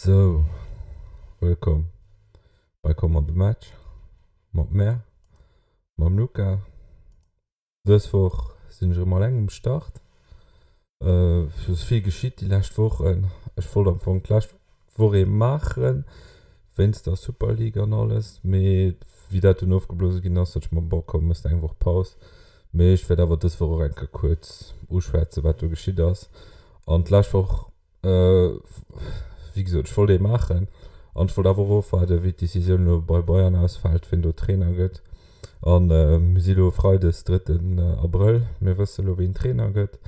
Sou, wëllkomm bei Komm an de Match mat mär, mam Luca. Dës Woch sinn ech erëm alleng um Start. Et ass vill geschitt déi lescht Wochen. Ech wollt am Fong d'lescht Woch ee maachen, wéinst der Super League an alles, mee wéi dat dunn ofgeblose ginn ass, sot ech mer, bon komm, méchs de eng Woch Paus. Mee ech wäert awer dës Woch och eng Kéier kuerz uschwätzen, wat do geschitt ass. An d'lescht Woch Wéi gesot, ech wollt ee maachen an ech wollt awer och ofwaarden, wéi d'Decisioun elo bei Bayern ausfält, wien do Trainer gëtt. A mir si elo freides, drëtten Abrëll, mir wësse elo, wien Trainer gëtt.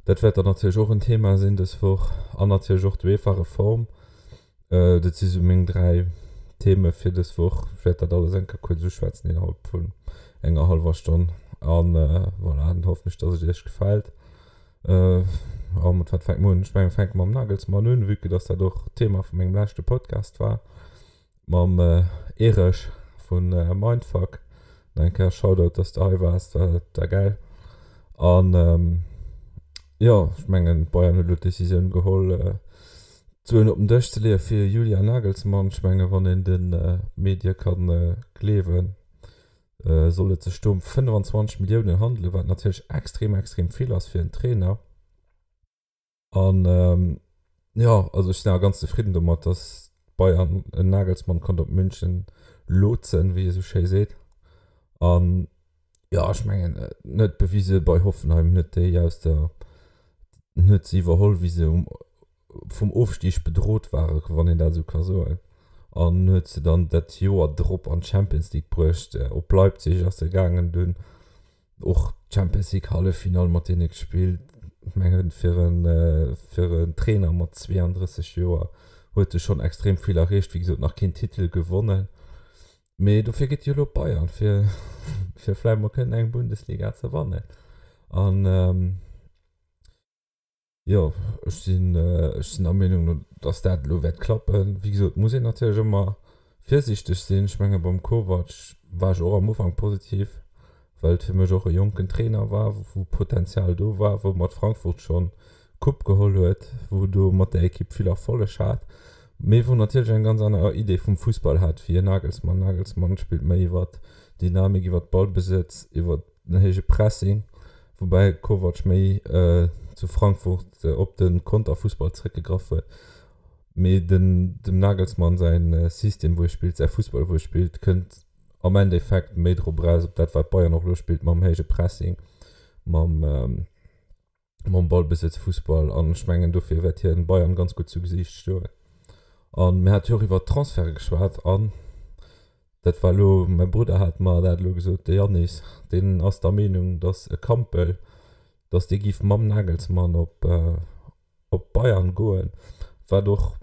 Dat wäert dann natierlech och en Thema sinn dës Woch an natierlech och d'UEFA-Reform. Dat si sou meng 3 Theme fir dës Woch. Ech wäert dat alles eng Kéier kuerz uschwätzen innerhalb vun enger hallwer Stonn. An voilà, dann hoffen ech, dass et iech gefält. A mat wat fänke mer un? Ech mengen, mir fänke mam Nagelsmann un, vue que dass dat och d'Thema vu mengem leschte Podcast war. Mam Erech vu Mindfuck. Nach eng Kéier Shoutout, dass de hei waars, war war gäil. An jo, ech mengen, Bayern huet elo d'Decisioun geholl, d'Suen op den Dësch ze leeë fir Julian Nagelsmann. Ech menge wann een de Medie ka gleewen, soll et sech do ëm 25 Milliounen handelen, wat natierlech extrem, extrem vill ass fir en Trainer. An jo, also ech sinn awer ganz zefridden domat, datt Bayern en Nagelsmann konnt op München lotsen, wéi ee sou schéi seet. An jo, ech mengen, en huet bewise bei Hoffenheim, en huet déi aus der, en huet se iwwerholl, wéi se um vum Ofstig bedrot waren, wann een dat esou ka soen, an huet se dann dat Joer drop an d'Champions League bruecht. Op Leipzig ass e gaangen, dunn och d'Champions League Halleffinall mat deene gespillt. Ech mengen, fir en, fir en Trainer mat 32 Joer huet e schonn extrem vill erreecht. Wéi gesot, nach keen Titel gewonnen, mee dofir geet e jo elo op Bayern, fir, fir vläicht mol kënnen eng Bundesliga ze wannen. An Jo, ech sinn, ech sinn der Meenung, dass dat elo wäert klappen. Wéi gesot, muss een natierlech ëmmer virsiichteg sinn. Ech menge beim Kovac war ech och am Ufank positiv, well et fir mech och e jonken Trainer war, wou Potenzial do war, wou mat Frankfurt schonn d'Coupe geholl huet, wou do mat där Ekipp vill Erfolleg hat, mee wou natierlech eng ganz aner Idee vum Fussball hat wéi en Nagelsmann. Nagelsmann spillt méi iwwer Dynamik, iwwer Ballbesëtz, iwwer den héije Pressing, woubäi Kovac méi zu Frankfurt op de Konterfussball zréckgegraff huet. Mee den dem Nagelsmann säin System wou e spillt, säi Fussball wou e spillt, kënnt am Endeffekt méi drop eraus op dat wat Bayern och elo spillt mam héije Pressing, mam mam Ballbesëtz Fussball an ech mengen dofir wäert hien Bayern ganz gutt zu Gesiicht stoen. An mir hate jo och iwwer Transferte geschwat an dat war elo, mäi Brudder hat mer dat elo gesot, de Yannis, deen ass der Meenung, datt e Kampl, datt dee giff mam Nagelsmann op op Bayern goen, wat och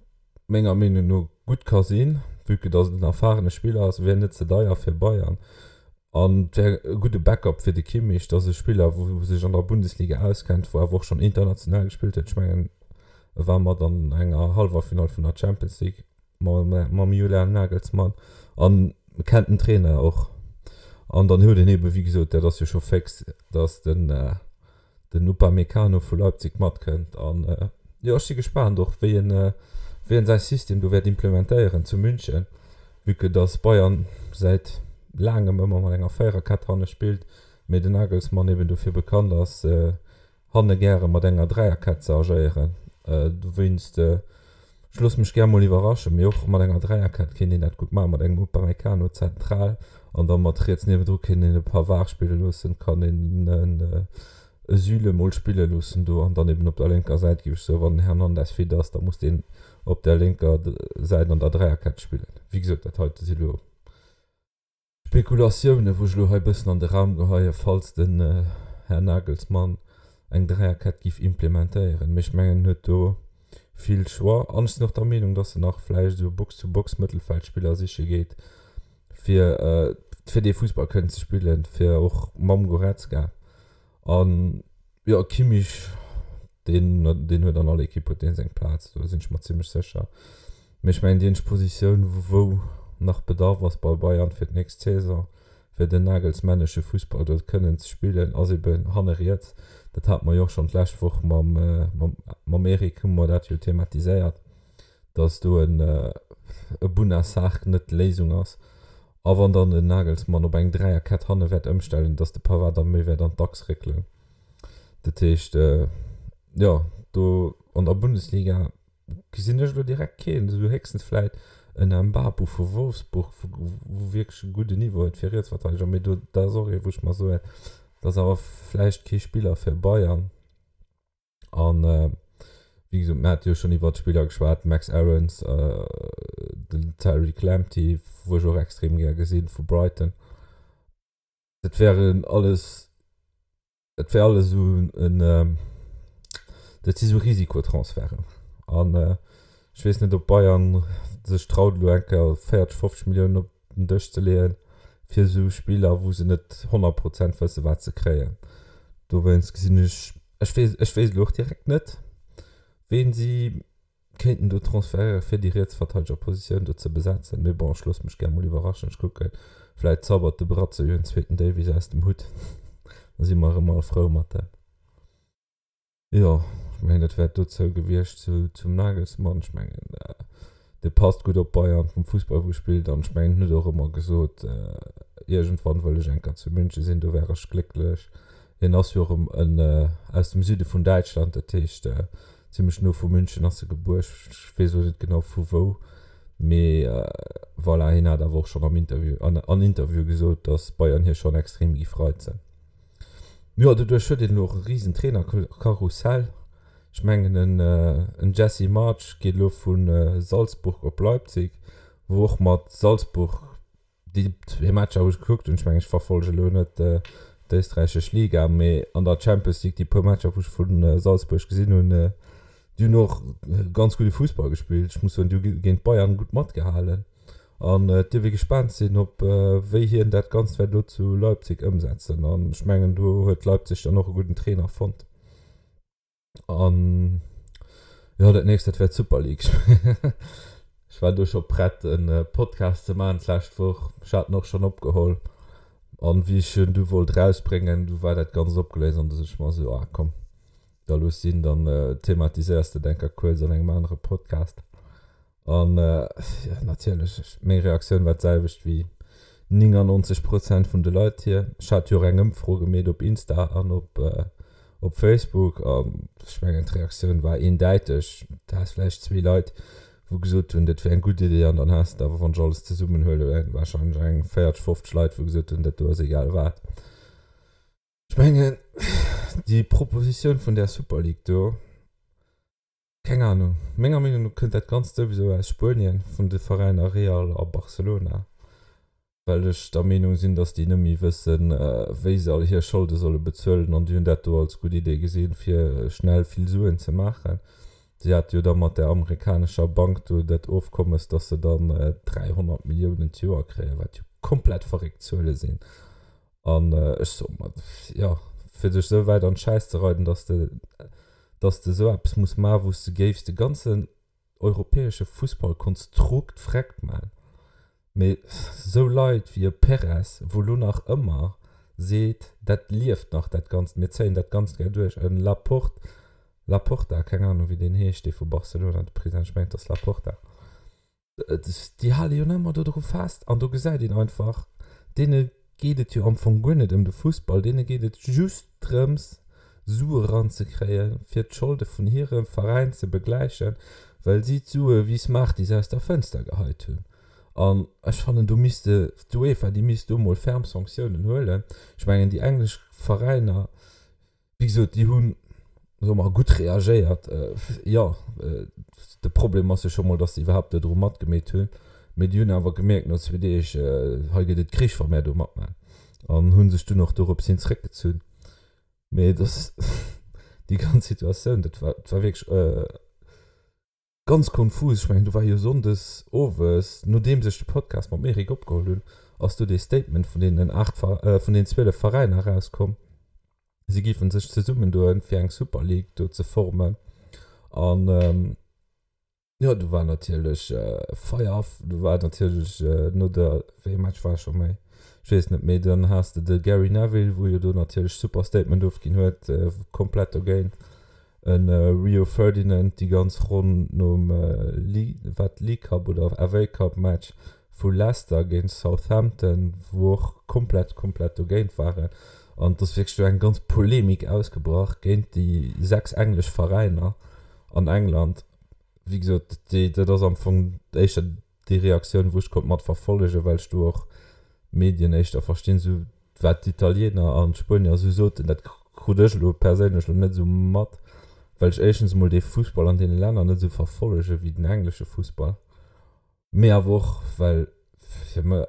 menger Meenung no gutt ka sinn, vue que datt et en erfarene Spiller ass, wär net ze deier fir Bayern. An et wär e gudde Backup fir de Kimmich. Dat ass e Spiller, wou sech an der Bundesliga auskennt, wou awer och schonn international gespillt huet. Ech mengen, e war mat an enger Hallwerfinall vun der Champions League mam Julian Nagelsmann an kennt den Trainer och. An dann huet een eebe, wéi gesot, dat ass jo scho féx, datt den den Upamecano vu Leipzig matkënnt an jo ech si gespaant och wéi en wéi en säi System do wäert implementéieren zu München, vue que dass Bayern säit laangem ëmmer mat enger Véiererkett hanne spillt, mee den Nagelsmann eben dofir bekannt ass hanne gäre mat enger Dräierkett ze agéieren. Dowéinst Ech loosse mech gär mol iwwerraschen, mee och mat enger Dräierkett kéint een dat gutt maachen, mat engem Upamecano zentral an da mat riets niewendru kéint een e Pavard spille loossen, kann een e Süle mol spille loossen do an dann eben op der lénker Säit, géif ech soen, wann den Hernandez fit ass, da muss deen op der lénker Säit an der Dräierkett spillen. Wéi gesot, dat heite si lo Spekulatiounen, wou ech elo hei e bëssen an de Raum geheien, falls den Här Nagelsmann eng Dräierkett giff implementéieren. Mee ech mengen, en huet do vill Choix. An ech sinn och der Meenung, dass en nach vläicht esou Box-to-Box-Mëttelfeldspiller siche geet, fir fir dee Fussball kënnen ze spillen, fir och mam Goretzka. An jo, Kimmich, deen, deen huet an all Ekipp huet deen seng Plaz, do sinn ech mer zimmlech sécher. Mee ech mengen, déi eenzeg Positioun, wou nach Bedarf ass bei Bayern fir d'nächst Saison, fir den nagelsmännesche Fussball do kënnen ze spillen, ass eben hanne riets. Dat hate mer jo och schonn d'lescht Woch mam, mam, mam Eric hu mer dat jo thematiséiert. Dass do en e Bouna Sarr net d'Léisung ass. A wann dann den Nagelsmann op eng Dräierkett hanne wäert ëmstellen, dass de Pavard da méi wäert an d'Achs réckelen. Dat heescht, jo, do an der Bundesliga gesinn ech elo direkt keen, esou héchstens vläit en Mbabu vu Wolfsburg, wou wierklech e gudden Niveau huet fir Rietsverteideger, mee do, dat ass och ee wou ech mer soen, dat ass awer vläicht kee Spiller fir Bayern. An wéi gesot, mir hate jo schonn iwwert d'Spiller geschwat, Max Aarons, den Tariq Lamptey, wou ech och extrem gär gesinn, vu Brighton. Dat wären alles, dat wär alles esou en, dat si sou Risikotransferten. An ech weess net, ob Bayern sech traut, elo eng Kéier 40, 50 Milliounen op den Dësch ze leeën, fir esou Spiller, wou se net 100 Prozent wësse wat se kréien. Dowéinst gesinn ech, ech weess, ech wéisst elo och direkt net, ween si kéinten do transferéieren, fir déi Rietsverteidegerpositioun do ze besetzen. Mee bon, ech loosse mech gär mol iwwerraschen. Ech kucken, vläit zaubert de Bratzo jo en zweeten Davies aus dem Hutt, da si mer erëm all frou mat em. Jo, ech mengen dat wär dozou gewiescht zu, zum Nagelsmann. Ech mengen dee passt gutt op Bayern vum Fussball wou e spillt an ech mengen en huet och ëmmer gesot, iergendwann wëll ech eng Kéier zu München sinn, do wär ech glécklech. Hien ass jo och en aus dem Süde vun Däitschland, dat heescht zimmlech no vu München ass e gebuer, ech weess elo net genau vu wou, mee voilà, hien hat awer och schonn am Interview, an an Interviewe gesot, datt Bayern hie schonn extrem géif reizen. Jo, doduerch huet een elo och e risen Trainerkarussell. Ech mengen en Jesse Marsch geet elo vu Salzburg op Leipzig, wou och mat Salzburg déi zwee Matcher wou ech gekuckt hunn, ech mengen ech verfollege elo net d'éisträichesch Liga, mee an der Champions League déi puer Matcher wou ech vu Salzburg gesinn hunn, déi hunn och ganz gudde Fussball gespillt. Ech muss soen, déi hu géint Bayern gutt matgehalen. An et dierf ee gespaant sinn, ob wéi hien dat Ganzt wäert elo zu Leipzig ëmsetzen. An ech mengen, do huet Leipzig dann och e gudden Trainer fonnt. An jo, dat nächst, dat wär d'Super League. Ech war do scho prett, e Podcast ze maachen d'lescht Woch. Ech hat en och schonn opgeholl. An wéi ech en du wollt erausbréngen, du war dat Ganzt opgeléist an du sot ech mer esou, ah komm, da looss sinn, dann thematiséiers de et eng Kéier kuerz an engem anere Podcast. An jo, natierlech, meng Reaktioun war d'selwecht wéi 99 Prozent vun de Leit hier. Ech hat jo och eng Ëmfro gemeet op Insta an op op Facebook an ech mengen d'Reaktioun war eendäiteg. Du has vläicht zwee Leit, wou gesot hunn, dat wär eng gutt Idee an dann has de awer, wann ech alles zesummenhuelen, warscheinlech eng 40, 50 Leit, wou gesot hunn, dat do ass egal wat. Ech mengen, déi Propositioun vun där Super League do, Keng Ahnung. Menger Meenung no kënnt dat Ganzt souwisou aus Spuenien, vun de Veräiner Real a Barcelona, well ech der Meenung sinn, dass déi net méi wëssen, wéi se all hir Scholde solle bezuelen an déi hunn dat do als gutt Idee gesinn, fir schnell vill Suen ze maachen. Si hate jo da mat där amerikanescher Bank do dat Ofkommes, dass se dann 300 Milliounen d'Joer kréien, wat jo komplett verréckt Zuele sinn. An ech soe mer, jo, fir dech esou wäit an d'Schäiss ze reiden, dass de, dass de esou eppes muss maachen, wou s de géifs de ganzen europäesche Fussballkonstrukt vreckt maachen. Mee esou Leit wéi e Perez, wou elo nach ëmmer seet, dat lieft nach dat Ganzt, mir zéien dat Ganzt gär duerch, e Laporte, Laporta, keng Ahnung wéi deen heescht, dee vu Barcelona, de President, ech mengen et ass Laporta, Déi hale jo nach ëmmer dodru fest an do gesäit een einfach, deene geet et jo am Fong guer net ëm de Fussball, deene geet et just drëms, Sue eranzekréien, fir d'Scholde vun hirem Veräin ze begläichen, well si d'Sue wéi Smarties aus der Fënster geheit hunn. An ech fannen, do misste d'UEFA, déi misst do mol ferm Sanktiounen huelen. Ech mengen, déi englesch Veräiner, Wéi gesot, déi hunn, soe mer, gutt reagéiert. Jo, de Problem ass jo scho mol, datt se iwwerhaapt dodru matgemeet hunn. Mee déi hunn awer gemierkt no zwee Deeg, hei gëtt et Krich, wa mär do matman. An hu sech dunn och dorops hin zréckgezunn. Mee dass déi ganz Situatioun, dat war, dat war wierklech Ganz konfus, ech mengen do war jo Sonndes owes, nodeems ech de Podcast mam Eric opgeholl hunn, ass do dee Statement vun deenen 8, vun den 12 Veräiner erauskomm, si géifen sech zesummendoen fir eng Super League do ze formen an jo do war natierlech Feier, do war natierlech no der, wéi ee Match war scho méi, ech weess net méi, dann has de de Gary Neville wou jo do natierlech super Statement ofginn huet, komplett dogéint. E Rio Ferdinand déi ganz Ronn nom wat League Cup oder FA Cup Match vu Leicester géint Southampton, wou och komplett komplett dogéint waren. An et ass wierklech do eng ganz Polemik ausgebrach géint déi 6 englesch Veräiner an England. Wéi gesot, déi dat ass am Fong éischter déi Reaktioun, wou ech konnt mat verfollegen, well ech do och d'Medien éischter verstinn, esou wat d'Italiener an d'Spuenier esou soten, dat krut ech elo perséinlech elo net esou mat, well ech éischtens emol dee Fussball an deene Länner net esou verfollege wéi den englesche Fussball, mee awer och well fir mech,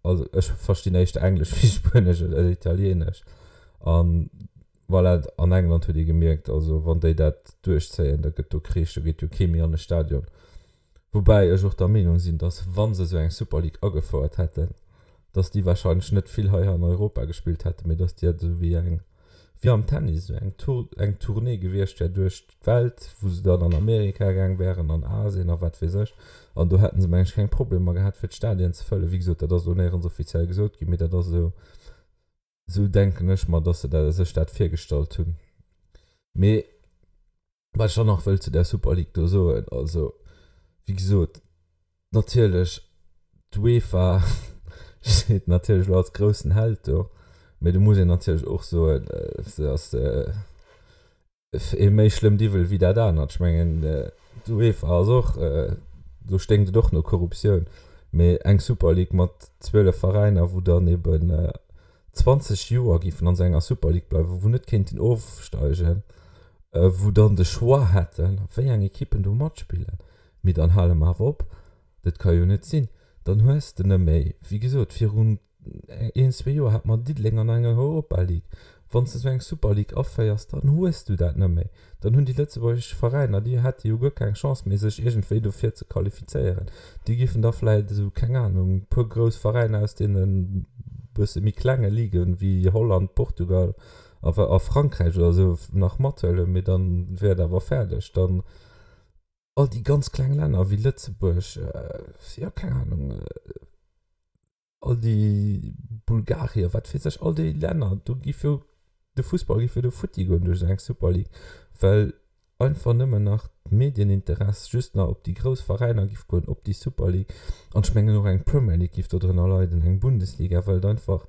also ech verstinn éischter Englesch wéi Spuenesch oder Italienesch an voilà, an England huet ee gemierkt, also wann déi dat duerchzéien, da gëtt do Krich, do geet jo kee méi an e Stadion. Woubäi ech och der Meenung sinn, datt wa se esou eng Super League agefouert hätten, datt déi wahrscheinlech net vill hei an Europa gespillt hätten, mee datt déi esou wéi eng, wéi am Tennis, esou eng Tour, eng Tournée gewiescht wär duerch d'Welt, wou se dann an Amerika gaang wären, an Asien a wat weess ech. An do hätte se, meng ech, keng Problemer gehat, fir d'Stadien ze fëllen. Wéi gesot, dat ass elo néierens offiziell gesot ginn, mee dat ass esou, esou denken ech mer, datt se sech dat virgestallt hunn. Mee Wat ech dann nach wëll zu där Super League do soen, also wéi gesot, natierlech d'UEFA steet natierlech elo als groussen Held do, mee do muss een natierlech och soen, se ass ee méi schlëmmt Iwwel wéi dat anert. Ech mengen d'UEFA ass och, do sténkt et och no Korruptioun, mee eng Super League mat 12 Veräiner, wou dann eben 20 Joer géifen an esou enger Super League bleiwen, wou net kéinten ofsteigen, wou dann de Choix hätten, wéi eng Ekippen do matspillen. Mee dann hale mer awer op, dat ka jo net sinn. Dann hues de net méi, wéi gesot, virun een, zwee Joer hat mer Diddeleng an enger Europa League. Wann s de esou eng Super League aféiers, dann hues du dat net méi. Dann hunn déi lëtzebuergesch Veräiner, déi hätte jo guer keng Chance méi, sech iergendwéi dofir ze qualifizéieren. Déi giffen da vläicht esou, keng Anung, e puer grouss Veräiner aus deene bësse méi klenge Liguen, wéi Holland, Portugal a a Frankräich oder esou nach mathuelen, mee dann wär et awer fäerdeg. Dann all déi ganz kleng Länner wéi Lëtzebuerg, jo, keng Anung, all déi Bulgarien, wat weess ech, all déi Länner, do giff jo de Fussball giff jo do futti goen duerch esou eng Super League, well einfach nëmmen nach d'Medieninteress just nach op déi grouss Veräiner giff goen, op déi Super League. An ech mengen och eng Premier League giff do drënner leiden, eng Bundesliga, well et einfach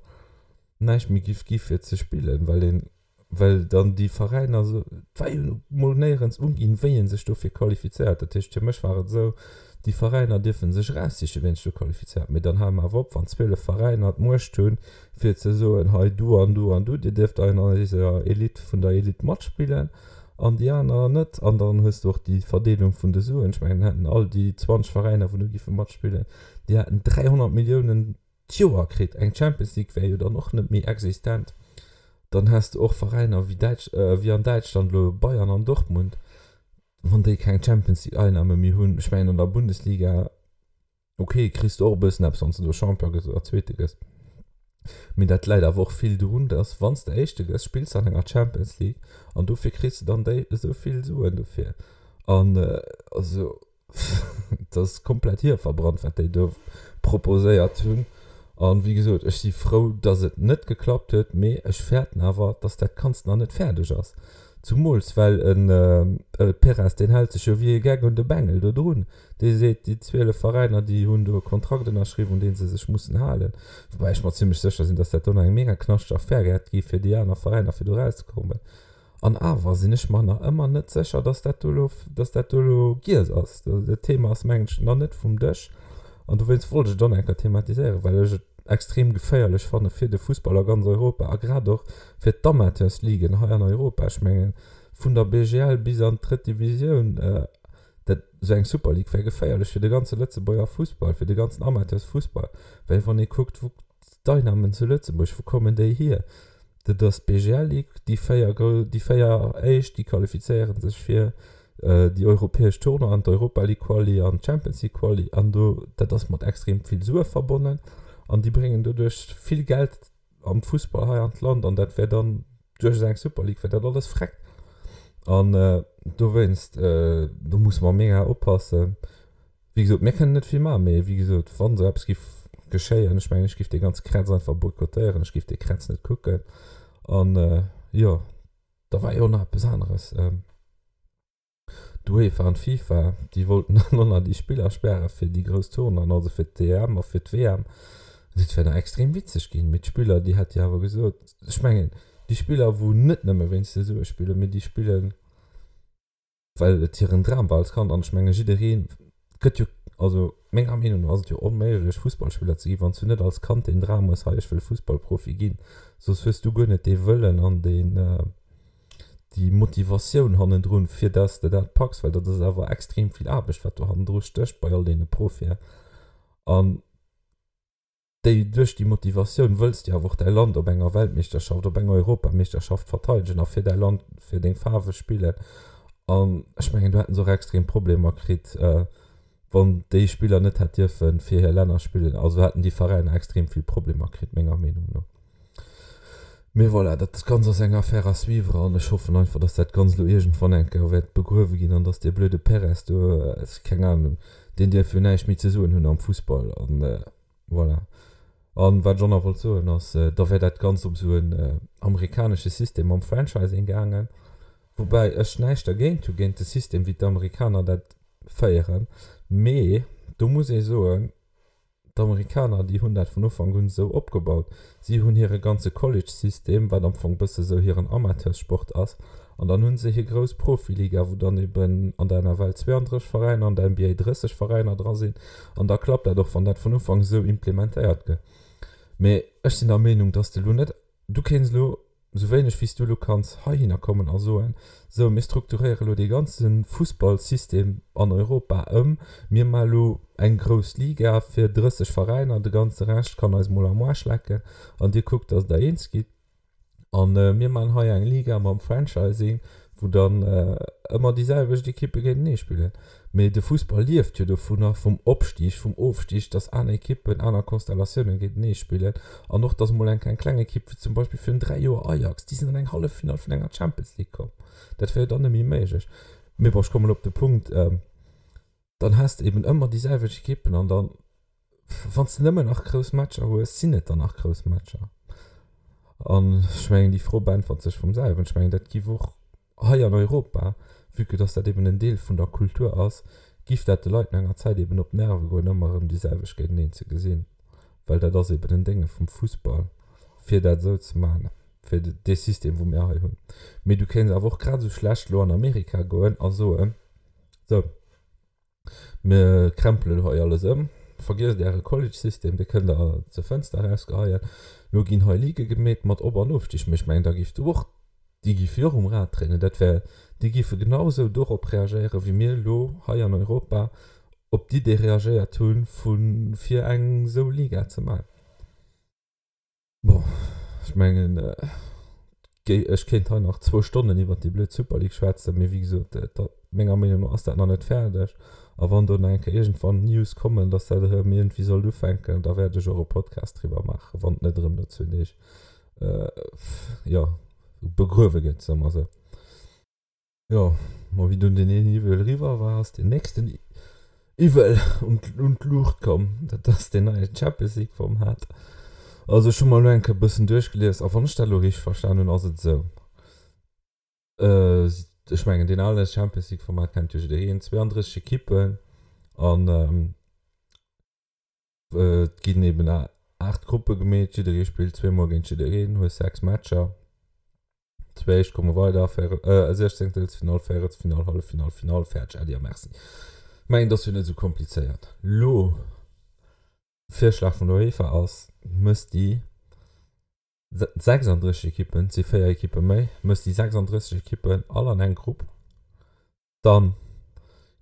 näischt méi giff gi fir ze spillen, well een well dann déi Veräiner esou, et war jo mol néierens uginn, wéi ee sech dofir qualifizéiert. Dat heescht, fir mech war et esou, déi Veräiner dierfe sech eraussichen, wien sech do qualifizéiert. Mee dann hale mer awer op, wann 12 Veräiner d'Muecht hunn, fir ze soen, hei du an du an du, dir dierft an eiser Elite vun der Elite matspillen an déi aner net. An dann hues de och déi Verdeelung vun de Suen. Ech mengen, hätten all déi 20 Veräiner, wou do giffe matspillen, déi hätten 300 Milliounen d'Joer kritt. Eng Champions League wär jo dann och net méi existent. Dann häss de och Veräiner wéi Däitsch, wéi an Däitschland elo Bayern an Dortmund, wann déi keng Champions League Einnahme méi hunn. Ech mengen an der Bundesliga, ok, kriss de och e bëssen eppes, wann s de do Champion gëss oder Zweete gëss. Mee dat läit awer och vill drun, dass wann s de Éischte gëss, spills de an enger Champions League an dofir kriss de dann déi esou vill Suen dofir. An also Et ass komplett hierverbrannt, wat déi do proposéiert hunn. An wéi gesot, ech si frou, dass et net geklappt huet, mee ech fäerten awer, dass dat Ganzt nach net fäerdeg ass. Zumools well en Perez, deen hält sech jo wéi e Geck un de Bengel do drun. Dee seet, déi 12 Veräiner, déi hunn do e Kontrakt ënnerschriwwen, un dee se sech mussen halen. Woubäi ech mer zimlech sécher sinn, dass dat do nach eng mega knaschteg Affär wäert gi fir déi aner Veräiner, fir do erauszekommen. An awer sinn ech mer nach ëmmer net sécher, dass dat do elo, dass dat do elo giess ass. Dat Thema ass, mengen ech, nach net vum Dësch. An dowéinst wollt ech et och nach eng Kéier thematiséieren, well ech et extrem geféierlech fanne fir de Fussball a ganz Europa a grad och fir d'Amateursligen hei an Europa. Ech mengen, vun der BGL bis an d'drëtt Divisioun, dat, esou eng Super League wär geféierlech fir de ganze Lëtzebuerger Fussball, fir de ganzen Amateursfussball. Well wann ee kuckt, wou D'Einnamen zu Lëtzebuerg, wou kommen déi hier? Dat ass d'BGL Ligue, déi 4 grou, déi 4 éischt, déi qualifizéiere sech fir déi europäesch Tournoien, d'Europa League Quali an d'Champions League Quali an do, dat ass mat extrem vill Sue verbonnen an déi bréngen doduerch vill Geld am Fussball hei an d'Land an dat wär dann duerch esou eng Super League wär dat alles freck an dowéinst, do musse mer mega oppassen. Wéi gesot, mir kënnen net vill maachen, mee wéi gesot, wann esou eppes giff geschéien, ech mengen, ech giff dee ganze Krätz einfach boykottéieren, ech giff dee Krätz net kucken. An jo, da war jo nach eppes aneres. D'UEFA an d'FIFA, déi wollten dann och nach déi Spiller späre fir déi grouss Tournoien, also fir d'EM a fir d'WM. Dat wär nach extrem witzeg ginn. Mee d'Spiller, déi hätt jo awer gesot, ech mengen, déi Spiller, wou net nëmme wéinst de Sue spillen, mee déi spillen, well et hiren Dram war als Kand. An ech menge jidderee gëtt jo, also menger Meenung no ass et jo onméiglech, Fussballspiller ze ginn, wann s du net als Kand deen Dram hues, hei ech wëll Fussballprofi ginn. Soss hues du guer net dee Wëllen an deen, déi Motivatioun hannendrun, fir dass de dat packs, well dat ass awer extrem vill Aarbecht, wat do hannendru stécht bei all deene Profien. An déi, duerch déi Motivatioun wëlls de awer och däi Land op enger Weltmeeschterschaft, op enger Europameeschterschaft verteidegen a fir däi Land, fir deng Faarwe spillen. An ech mengen, do hätte se och extrem Problemer kritt, wann déi Spiller net hätt dierfe fir hir Länner spillen. Also hätten déi Veräiner extrem vill Problemer kritt, menger Meenung no. Mee voilà, dat Ganzt ass eng Affaire à suivre an ech hoffen einfach, dass dat Ganzt elo iergendwann eng Kéier wäert begruewe ginn an dass dee blöde Perez do, keng Ahnung, deen dierf jo näischt méi ze soen hunn am Fussball an voilà. An wat ech och nach wollt soen ass, da wär dat Ganzt op esou en amerikanesche System mam Franchising gaangen, woubäi ech näischt dergéint hu géint de System wéi d'Amerikaner dat féieren, mee do muss ee soen, D'Amerikaner, déi hunn dat vun Ufank un esou opgebaut. Si hunn hire ganze College-System, wat am Fong bësse sou hiren Amateurssport ass, an dann hu se hir grouss Profiliga, wou dann eben an der NFL 32 Veräiner, an der NBA 30 Veräiner dra sinn. An da klappt dat och, wann dat vun Ufank esou implementéiert gëtt. Mee ech sinn der Meenung, dass de elo net, du kéints elo Esou wéineg wéi s du elo kanns heihinner kommen a soen, Sou, mir strukturéiere elo dee ganze Fussballsystem an Europa ëm, mir maache elo eng grouss Liga fir 30 Veräiner, de ganze Rescht kann eis mol am Aarsch lecken an dir kuckt, datt der eens gitt a mir maachen hei eng Liga mam Franchising, wou dann ëmmer déi selwecht Ekippe géintenee spillen. Mee de Fussball lieft jo dovunner, vum Opstig, vum Ofstig, datt aner Ekippen, aner Konstellatiounen géintenee spillen an och, datt emol eng eng kleng Ekipp, wéi zum Beispill virun 3 Joer Ajax, déi sinn an eng Halleffinall vun enger Champions League komm. Dat wär jo dann net méi méiglech. Mee bon, ech kommen elo op de Punkt, Dann has de eben ëmmer déi selwecht Ekippen an dann, wann s de nëmmen nach grouss Matcher hues, sinn et dann nach grouss Matcher? An ech mengen, déi Fro beäntwert sech vum selwen. Ech mengen, dat giff och hei an Europa, vue que dass dat eben en Deel vun der Kultur ass, giff dat de Leit no enger Zäit eben op d'Nerve goen, ëmmer erëm déi selwecht géinteneen ze gesinn. Well dat ass eben en Dénge vum Fussball, fir dat esou ze maachen, fir dee System, wou mir hei hunn. Mee du kéints awer och grad esou schlecht elo an Amerika goen a soen, Sou, mir krempelen elo hei alles ëm. Vergiesst äre College-System, dee kënnt der zur Fënster erausgeheien. Elo ginn hei Ligë gemeet mat Op an Ofstig. Mee ech mengen, da giff du och, déi giffe jo och um Rad dréinen. Dat wär, déi giffe genau esou dorop reagéieren, wéi mir elo hei an Europa op d'Idee reagéiert hunn, vu fir eng esou Liga ze maachen. Bon, ech mengen, ech kéint hei nach zwou Stonnen iwwert déi blöd Super League schwätzen, mee wéi gesot, menger Meenung no ass dat nach net fäerdeg. A wann do nach eng Kéier iergendwann News kommen, dass dat erëm iergendwéi sollt ufänken, da wäert ech och e Podcast driwwer maachen, wann et net erëm no zwee Deeg, jo, begruewe gëtt, soe mer esou. Jo, ma wéi dunn deen een Iwwel eriwwer war, ass deen nächsten Iwwel un d'Luucht komm. Dat ass deen neie Champions League Format. Also ech hu mer elo eng Kéier e bëssen duerchgelies a wann ech dat elo richteg verstan hunn, ass et esou, ech mengen deen ale Champions League Format kennt jo jiddereen, 32 Ekippen an Et ginn eben 8 Gruppe gemeet, jidderee spillt zweemol géint jiddereen, hues 6 Matcher. Zwee éischt komme weider, Siechzéngtelsfinall, Véierelsfinall, Halleffinall, Finall, fäerdeg, Äddi a Merci. Mengen, et ass jo net esou komplizéiert. Lo, Virschlag vun der UEFA ass, mëss déi 36 Ekippen, et si 4 Ekippe méi, mëss déi 36 Ekippen all an eng Grupp. Dann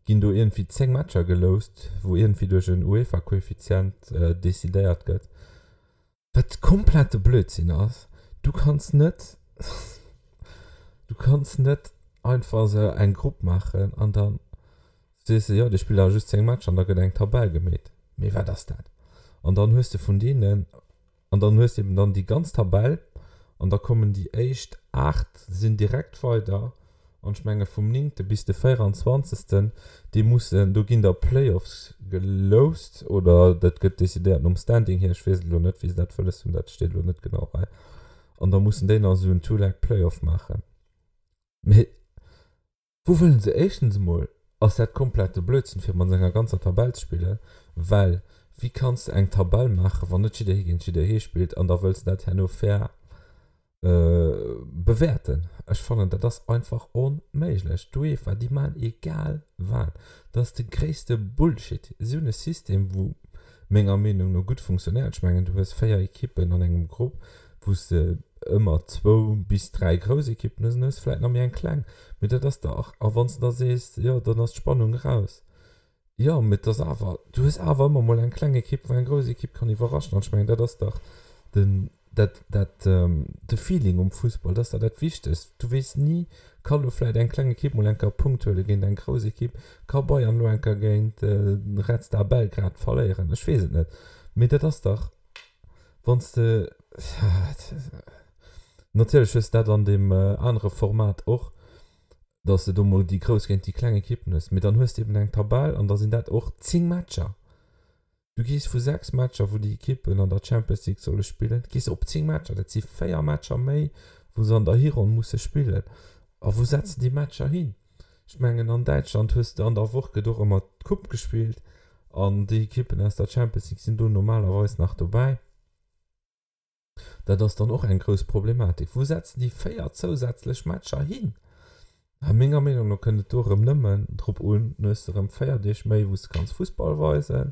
ginn do iergendwéi 10 Matcher geloust, wou iergendwéi duerch en UEFA-Koeffizient decidéiert gëtt, wat komplette Blödsinn ass. Du kanns net, du kanns net einfach esou eng Grupp maachen an dann sees de, jo, dir spillt awer just 10 Matcher an da gëtt eng Tabell gemeet. Mee wat ass dat? An dann hues de vun deenen An dann hues de eben dann déi ganz Tabell an da kommen déi éischt 8 sinn direkt weider an ech menge vum néngte bis de véieranzwanzegsten, déi mussen, do ginn da Playoffs geloust oder dat gëtt decidéiert nom Standing hier, ech weess et elo net wéi se dat wëlles hunn, dat steet elo net genau hei, an da mussen déi nach esou en Two-Leg-Playoff maachen. Mee. Wou wëllen se? Éischtens emol ass dat komplette Blödsinn fir mat enger ganzer Tabell ze spillen, well wéi kanns de eng Tabell maachen, wann net jidderee géint jidderee spillt an da wëlls de dat herno fair bewäerten? Ech fannen dat ass einfach onméiglech. D'UEFA déi maachen egal wat, dat ass de gréisste Bullshit. Si hunn e System wou menger Meenung no gutt funktionéiert. Ech mengen du hues 4 Ekippen an engem Grupp, wou s de ëmmer zwou bis 3 grouss Ekippen hues an hues vläit nach méi eng kleng. Mee dat ass dach, a wann s de da sees, jo dann ass d'Spannung eraus, jo mee et ass awer, du hues awer ëmmer mol eng kleng Ekipp wou eng grouss Ekipp kann iwwerraschen. An ech mengen dat ass dach den, dat, dat, de Feeling um Fussball, dat ass dach dat Wichtegst. Du weess ni, ka lo vläit eng kleng Ekipp mol eng Kéier e Punkt huele géint eng grouss Ekipp, ka Bayern lo eng Kéier géint Red Star Belgrad verléieren, ech weess et net. Mee dat ass dach, wann s de, natierlech hues de dat an deem anere Format och, datt s de do mol déi grouss géint déi kleng Ekippen hues, mee dann hues de eben eng Tabell an da sinn dat och 10 Matcher. Du gees vu 6 Matcher, wou déi Ekippen an der Champions League solle spillen, gees op 10 Matcher. Dat si 4 Matcher méi, wou se an der Hironn musse spillen. A wou setze déi Matcher hin? Ech mengen, an Däitschland hues de an der Woch gëtt och ëmmer d'Coupe gespillt an déi Ekippen aus der Champions League sinn do normalerweis nach dobäi. Dat ass dann och eng grouss Problematik. Wou setzen déi 4 zousätzlech Matcher hin? A menger Meenung no kënnt et do erëm nëmmen drop un, dann hues de erëm 4 Deeg méi, wou s de kanns Fussball weisen,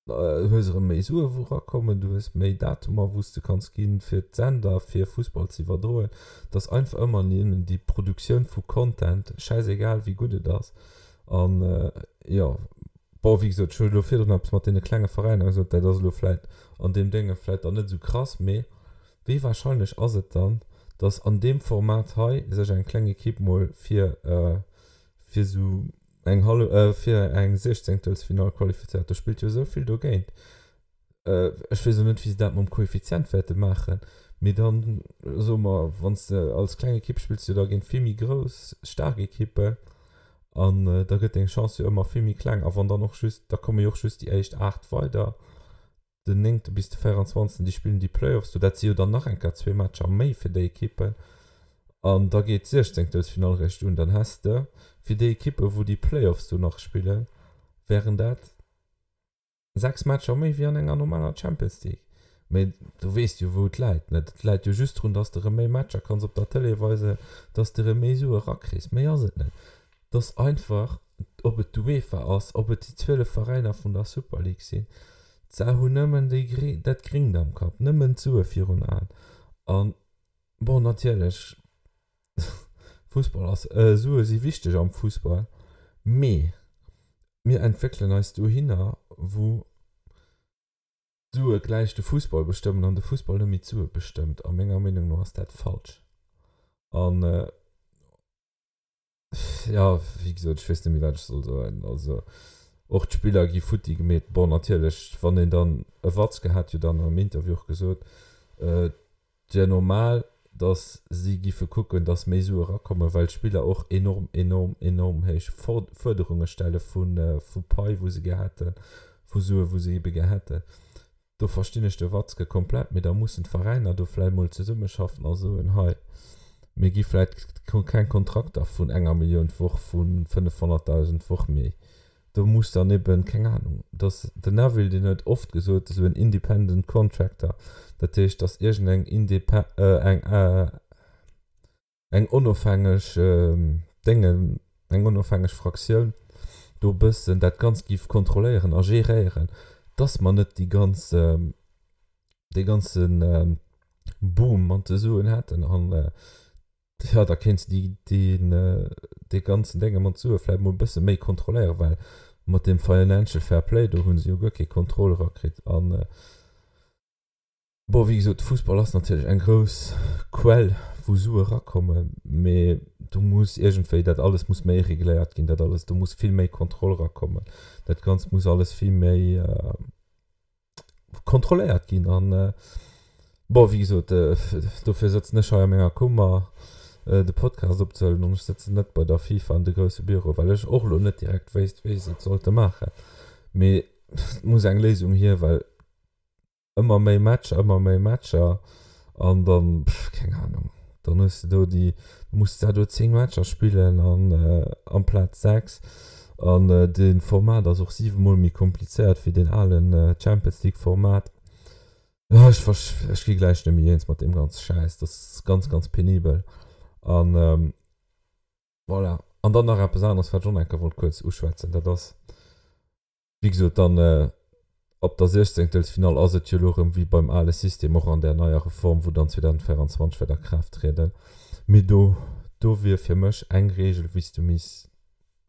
hues erëm méi Sue wou erakommen, du hues méi Datumer wou s de kanns ginn, fir d'Sender fir Fussball ze iwwerdroen. Et ass einfach ëmmer nëmmen déi Produktioun vu Content, schäisegal wéi gutt et ass. An jo, Bon, wéi gesot, ech hu elo virdrun eppes mat deene klenge Veräiner gesot, dat ass elo vläit an deem Dénge vläit dann net esou krass, mee wéi wahrscheinlech ass et dann, datt an deem Format hei sech eng kleng Ekipp mol fir fir esou eng hallef, fir eng Siechzéngtelsfinall qualifizéiert? Do spillt jo esou vill dogéint. Ech weess elo net, wéi se dat mam Koeffizient wäerte maachen, mee dann soe mer, wann s de als kleng Ekipp spills du da géint vill méi grouss, staark Ekippen an da gëtt deng Chance jo ëmmer vill méi kleng. A wann dann och just, da komme jo och just déi éischt 8 weider, den néngte bis de 24., déi spillen déi Playoffs do, dat si jo dann nach eng Kéier zwee Matcher méi fir déi Ekippen an da geet d'Siechzéngtelsfinall eréischt un. Dann häss de fir déi Ekippen, wou déi Playoffs do nach spillen, wären dat 6 Matcher méi wéi an enger normaler Champions League. Mee du weess jo wou et läit, net? Et läit jo just drun, dass de rëm méi Matcher kanns op der Tëlee weisen, dass de rëm méi Sue rakriss. Méi ass et net. Et ass einfach, ob et d'UEFA ass, ob et déi 12 Veräiner vun der Super League sinn, se hunn nëmmen déi, dat Gringt am Kapp, nëmmen d'Sue virun Aen. An bon, natierlech, Fussball ass, Sue si wichteg am Fussball, mee mir entwéckelen eis dohinner, wou d'Sue gläich de Fussball bestëmmen an de Fussball net méi d'Sue bestëmmt. A menger Meenung no ass dat falsch. An jo, wéi gesot, ech weess net méi, wat ech soll soen. Also och d'Spiller gi futti gemeet. Bon, natierlech, wann een dann, e Watzke hat jo dann am Interview och gesot, Et wier normal, datt si giffe kucken, datt méi Sue erakommen, well d'Spiller och enorm, enorm, enorm héich Fuerderunge stelle vu Pai, wou se gär hätten, vu Sue, wou se ebe gär hätten. Do verstinn ech de Watzke komplett, mee da mussen d'Veräiner do vläicht mol zesummeschaffen a soen, hei, mir gi vläicht keng Kontrakter vun enger Millioun d'Woch, vu 500.000 d'Woch méi. Do muss dann eben, keng Ahnung, dass den Neville, deen huet oft gesot, esou en independent contractor, dat heescht, dass iergendeng indepe eng eng onofhängeg Déngen, eng onofhängeg Fraktioun do e bëssen dat Ganzt géif kontrolléieren a geréieren, dass mer net déi ganz, dee ganze Boom mat de Suen hätten an Jo, da kéints de déi, dee ganzen Dénge mat Sue vläicht mol e bësse méi kontrolléieren, well mat deem Financial Fair Play do hu se jo guer kee Contrôle erakritt. An, bon, wéi gesot, de Fussball ass natierlech eng grouss Quell, wou Sue erakommen, mee do muss iergendwéi, dat alles muss méi regléiert ginn, dat alles, do muss vill méi Kontroll erakommen, dat Ganzt muss alles vill méi, kontrolléiert ginn an bon wéi gesot dofir sëtzen ech hei a menger Kummer de Podcast opzehuelen an ech sëtzen net bei der FIFA an de grousse Büro well ech och elo net direkt wéisst wéi se et sollte maachen mee et muss eng Léisung hier well ëmmer méi Matcher ëmmer méi Matcher an dann keng Ahnung. Dann hues de do déi, da muss de do 10 Matcher spillen an amplaz 6. An de Format ass och 7 mol méi komplizéiert wéi deen alen Champions League Format. Ech ech gi gläich net méi eens mat deem ganze Schäiss. Dat ass ganz, ganz penibel. An voilà. An dann nach eppes aneres, wat ech och nach eng Kéier wollt kuerz uschwätzen, dat ass, Wéi gesot, dann ab der Siechzéngtelsfinall ass et jo elo erëm wéi beim ale System, och an där neier Reform, wou dann 2024 wäert a Kraaft trieden. Mee do, do wier fir mech eng Regel, wéi s du misst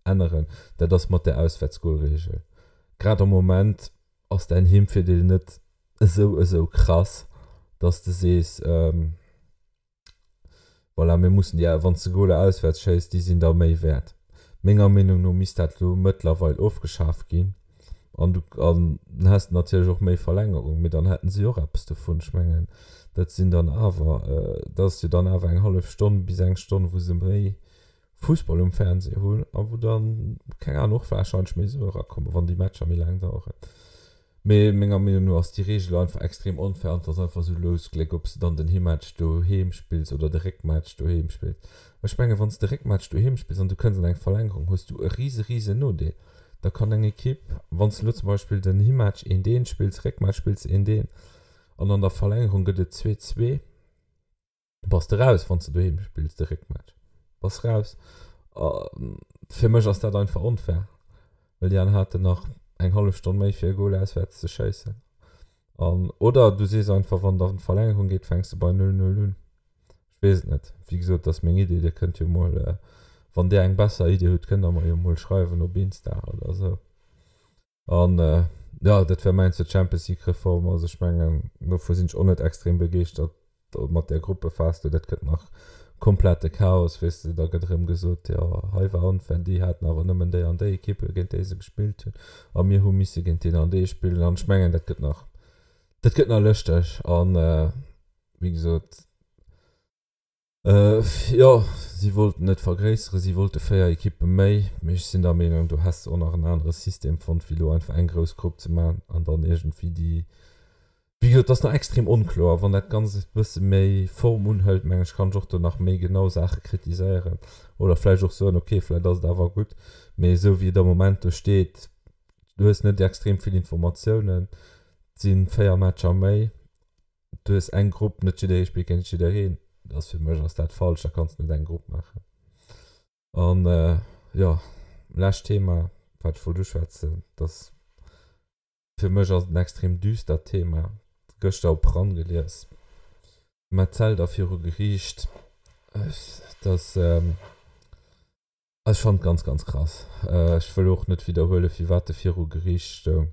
änneren, dat ass mat där Auswäertsgolregel. Grad am Moment ass däin Heemvirdeel net esou, esou krass, dass de sees, Voilà, mir mussen déi, wann s de Goler auswäerts schéiss, déi sinn da méi wäert. Menger Meenung no misst dat elo mëttlerweil ofgeschaf ginn. An du, an dann häss de natierlech och méi Verlängerung, mee dann hätten si och eppes dovun. Ech mengen, dat sinn dann awer, dat ass jo dann awer eng hallef Stonn bis eng Stonn, wou se méi Fussball um Fernseh hunn a wou dann, keng Ahnung, och warscheinlech méi Sue erakommen, wann déi Matcher méi laang daueren. Mee menger Meenung no ass déi Reegel einfach extrem onfair an et ass einfach esou Lousgléck, ob s de dann den Himmatch doheem spills oder de Réckmatch doheem spills. Ech mengen, wann s de Réckmatch doheem spills an du kënns an eng Verlängerung, hues du e rise rise Nodeel. Da kann eng Ekipp, wann s de elo zum Beispill den Himmatch eent eent spills, Réckmatch spills de eent eent an an der Verlängerung gëtt et 2, 2, Bass de raus wanns de doheem spills de Réckmatch bass raus. Fir mech ass dat einfach onfair, well déi aner haten nach eng hallef Stonn méi fir e Goal auswäerts ze schéissen. An oder du sees einfach wann et an d'Verlängerung geet fänks de bei 0, 0 un. Ech weess et net, wéi gesot dat ass meng Idee, dir kënnt jo mol wann dir eng besser Idee hutt kënnt der mer jo mol schreiwen op Insta oder esou. An jo, dat wär mäin zur Champions League Reform. Also ech mengen, dovu sinn ech och net extrem begeeschtert mat där Gruppephas do. Dat gëtt nach komplette Chaos, weess de. Da gëtt erëm gesot, jo hei war onfair, déi haten awer nëmmen déi an déi Ekippe géint déi se gespillt hunn a mir hu misse géint deen an dee spillen. An ech mengen, dat gëtt nach, dat gëtt nach lëschteg. An wéi gesot, Jo, si wollten et vergréisseren, si wollte 4 Ekippe méi, mee ech sinn der Meenung, do häss de och nach en anere System fonnt, wéi elo einfach eng grouss Grupp ze maachen an dann iergendwéi déi, wéi gesot, et ass nach extrem onkloer. Wann dat Ganzt e bësse méi Form unhëlt, meng ech, kann ech och do nach méi genau Saache kritiséieren oder vläicht och soen, ok, vläicht ass et awer gutt, mee esou wéi et am Moment do steet, du hues net extrem vill Informatiounen, et si 4 Matcher méi. Du hues eng Grupp, net jidderee spillt géint jiddereen. Dat ass fir mech ass dat falsch, da kanns de net eng Grupp maachen. An jo, lescht Thema, wat ech wollt uschwätzen, dass fir mech ass et en extrem düstert Thema, gëschter op ran gelies, Metzelder viru Geriicht, dass, ech fannen et ganz, ganz krass. Ech wëll och net widderhuelen, firwat e viru Geriicht stoung.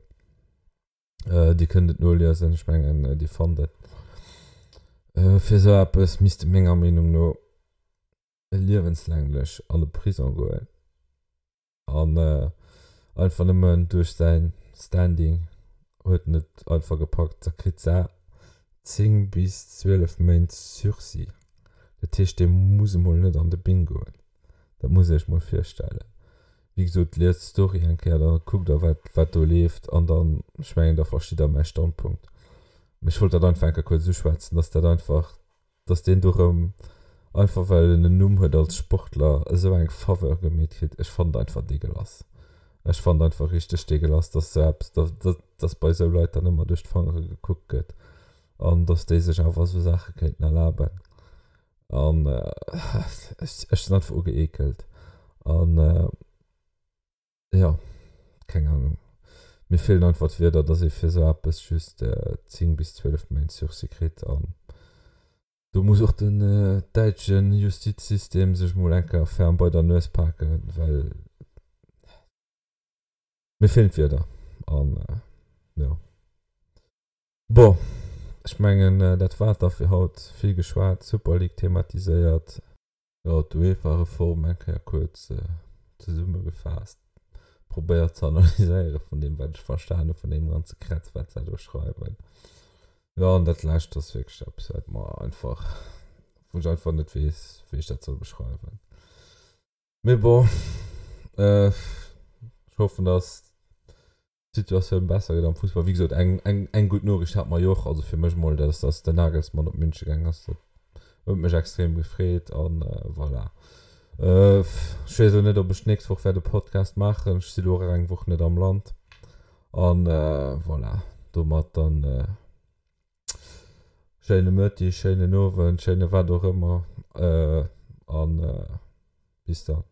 Dir kënnt et noliesen, ech mengen Dir fannt et. Fir esou eppes misst e menger Meenung no liewenslänglech an de Prison goen an einfach nëmmen duerch säin Standing huet en et einfach gepackt. Da kritt sa 10 bis 12 Méint Sursis. Dat heescht dee muss emol net an de Bing goen. Dat muss Iech mol virstellen. Wéi gesot, liest d'Story eng Kéier, da kuckt der wat wat do leeft an dann, ech mengen, da verstitt der mäi Standpunkt. Mee ech wollt dat einfach eng Kéier kuerz uschwätzen, dass dat einfach, dass deen do rëm, einfach well en en Numm huet als Sportler, esou eng Faveur gemeet kritt. Ech fannen et einfach deegelass. Ech fannen et einfach richteg deegelass, dass esou eppes, dass dass bei esou Leit dann ëmmer duerch d'Fangere gekuckt gëtt an dass déi sech awer esou Saache kéinten erlaben. An ech sinn einfach ugeekelt. An jo, keng Ahnung. Mir feelen einfach d'Wierder, dass ee fir esou eppes just 10 bis 12 Méint Sursis kritt. An do muss och den däitsche Justizsystem sech mol eng Kéier ferm bei der Nues paken, well mir feelen d'Wierder. An jo. Bon, ech mengen dat war et da fir haut. Vill geschwat, Super League thematiséiert. Jo, d'UEFA-Reform eng Kéier kuerz zesummegefaasst, probéiert ze analyséiere vun deem wat ech verstan hu vun deem ganze Kretz wat se do schreiwen. Jo, an dat lescht ass wierklech eppes wat mer einfach, wou ech einfach net weess wéi ech dat soll beschreiwen. Mee bon, ech hoffen dass d'Situatioun besser gëtt am Fussball. Wéi gesot, eng, eng, eng gutt Noriicht hat mer jo och, also fir mech mol, dat ass, dass den Nagelsmann op Münche gaang ass. Dat Huet mech extrem gefreet an voilà. Ech weess elo net ob ech d'nächst Woch wäert e Podcast maachen. Ech si lo och eng Woch net am Land an voilà domat dann schéine Mëtteg, schéinen Owend, schéine wat och ëmmer an bis dann.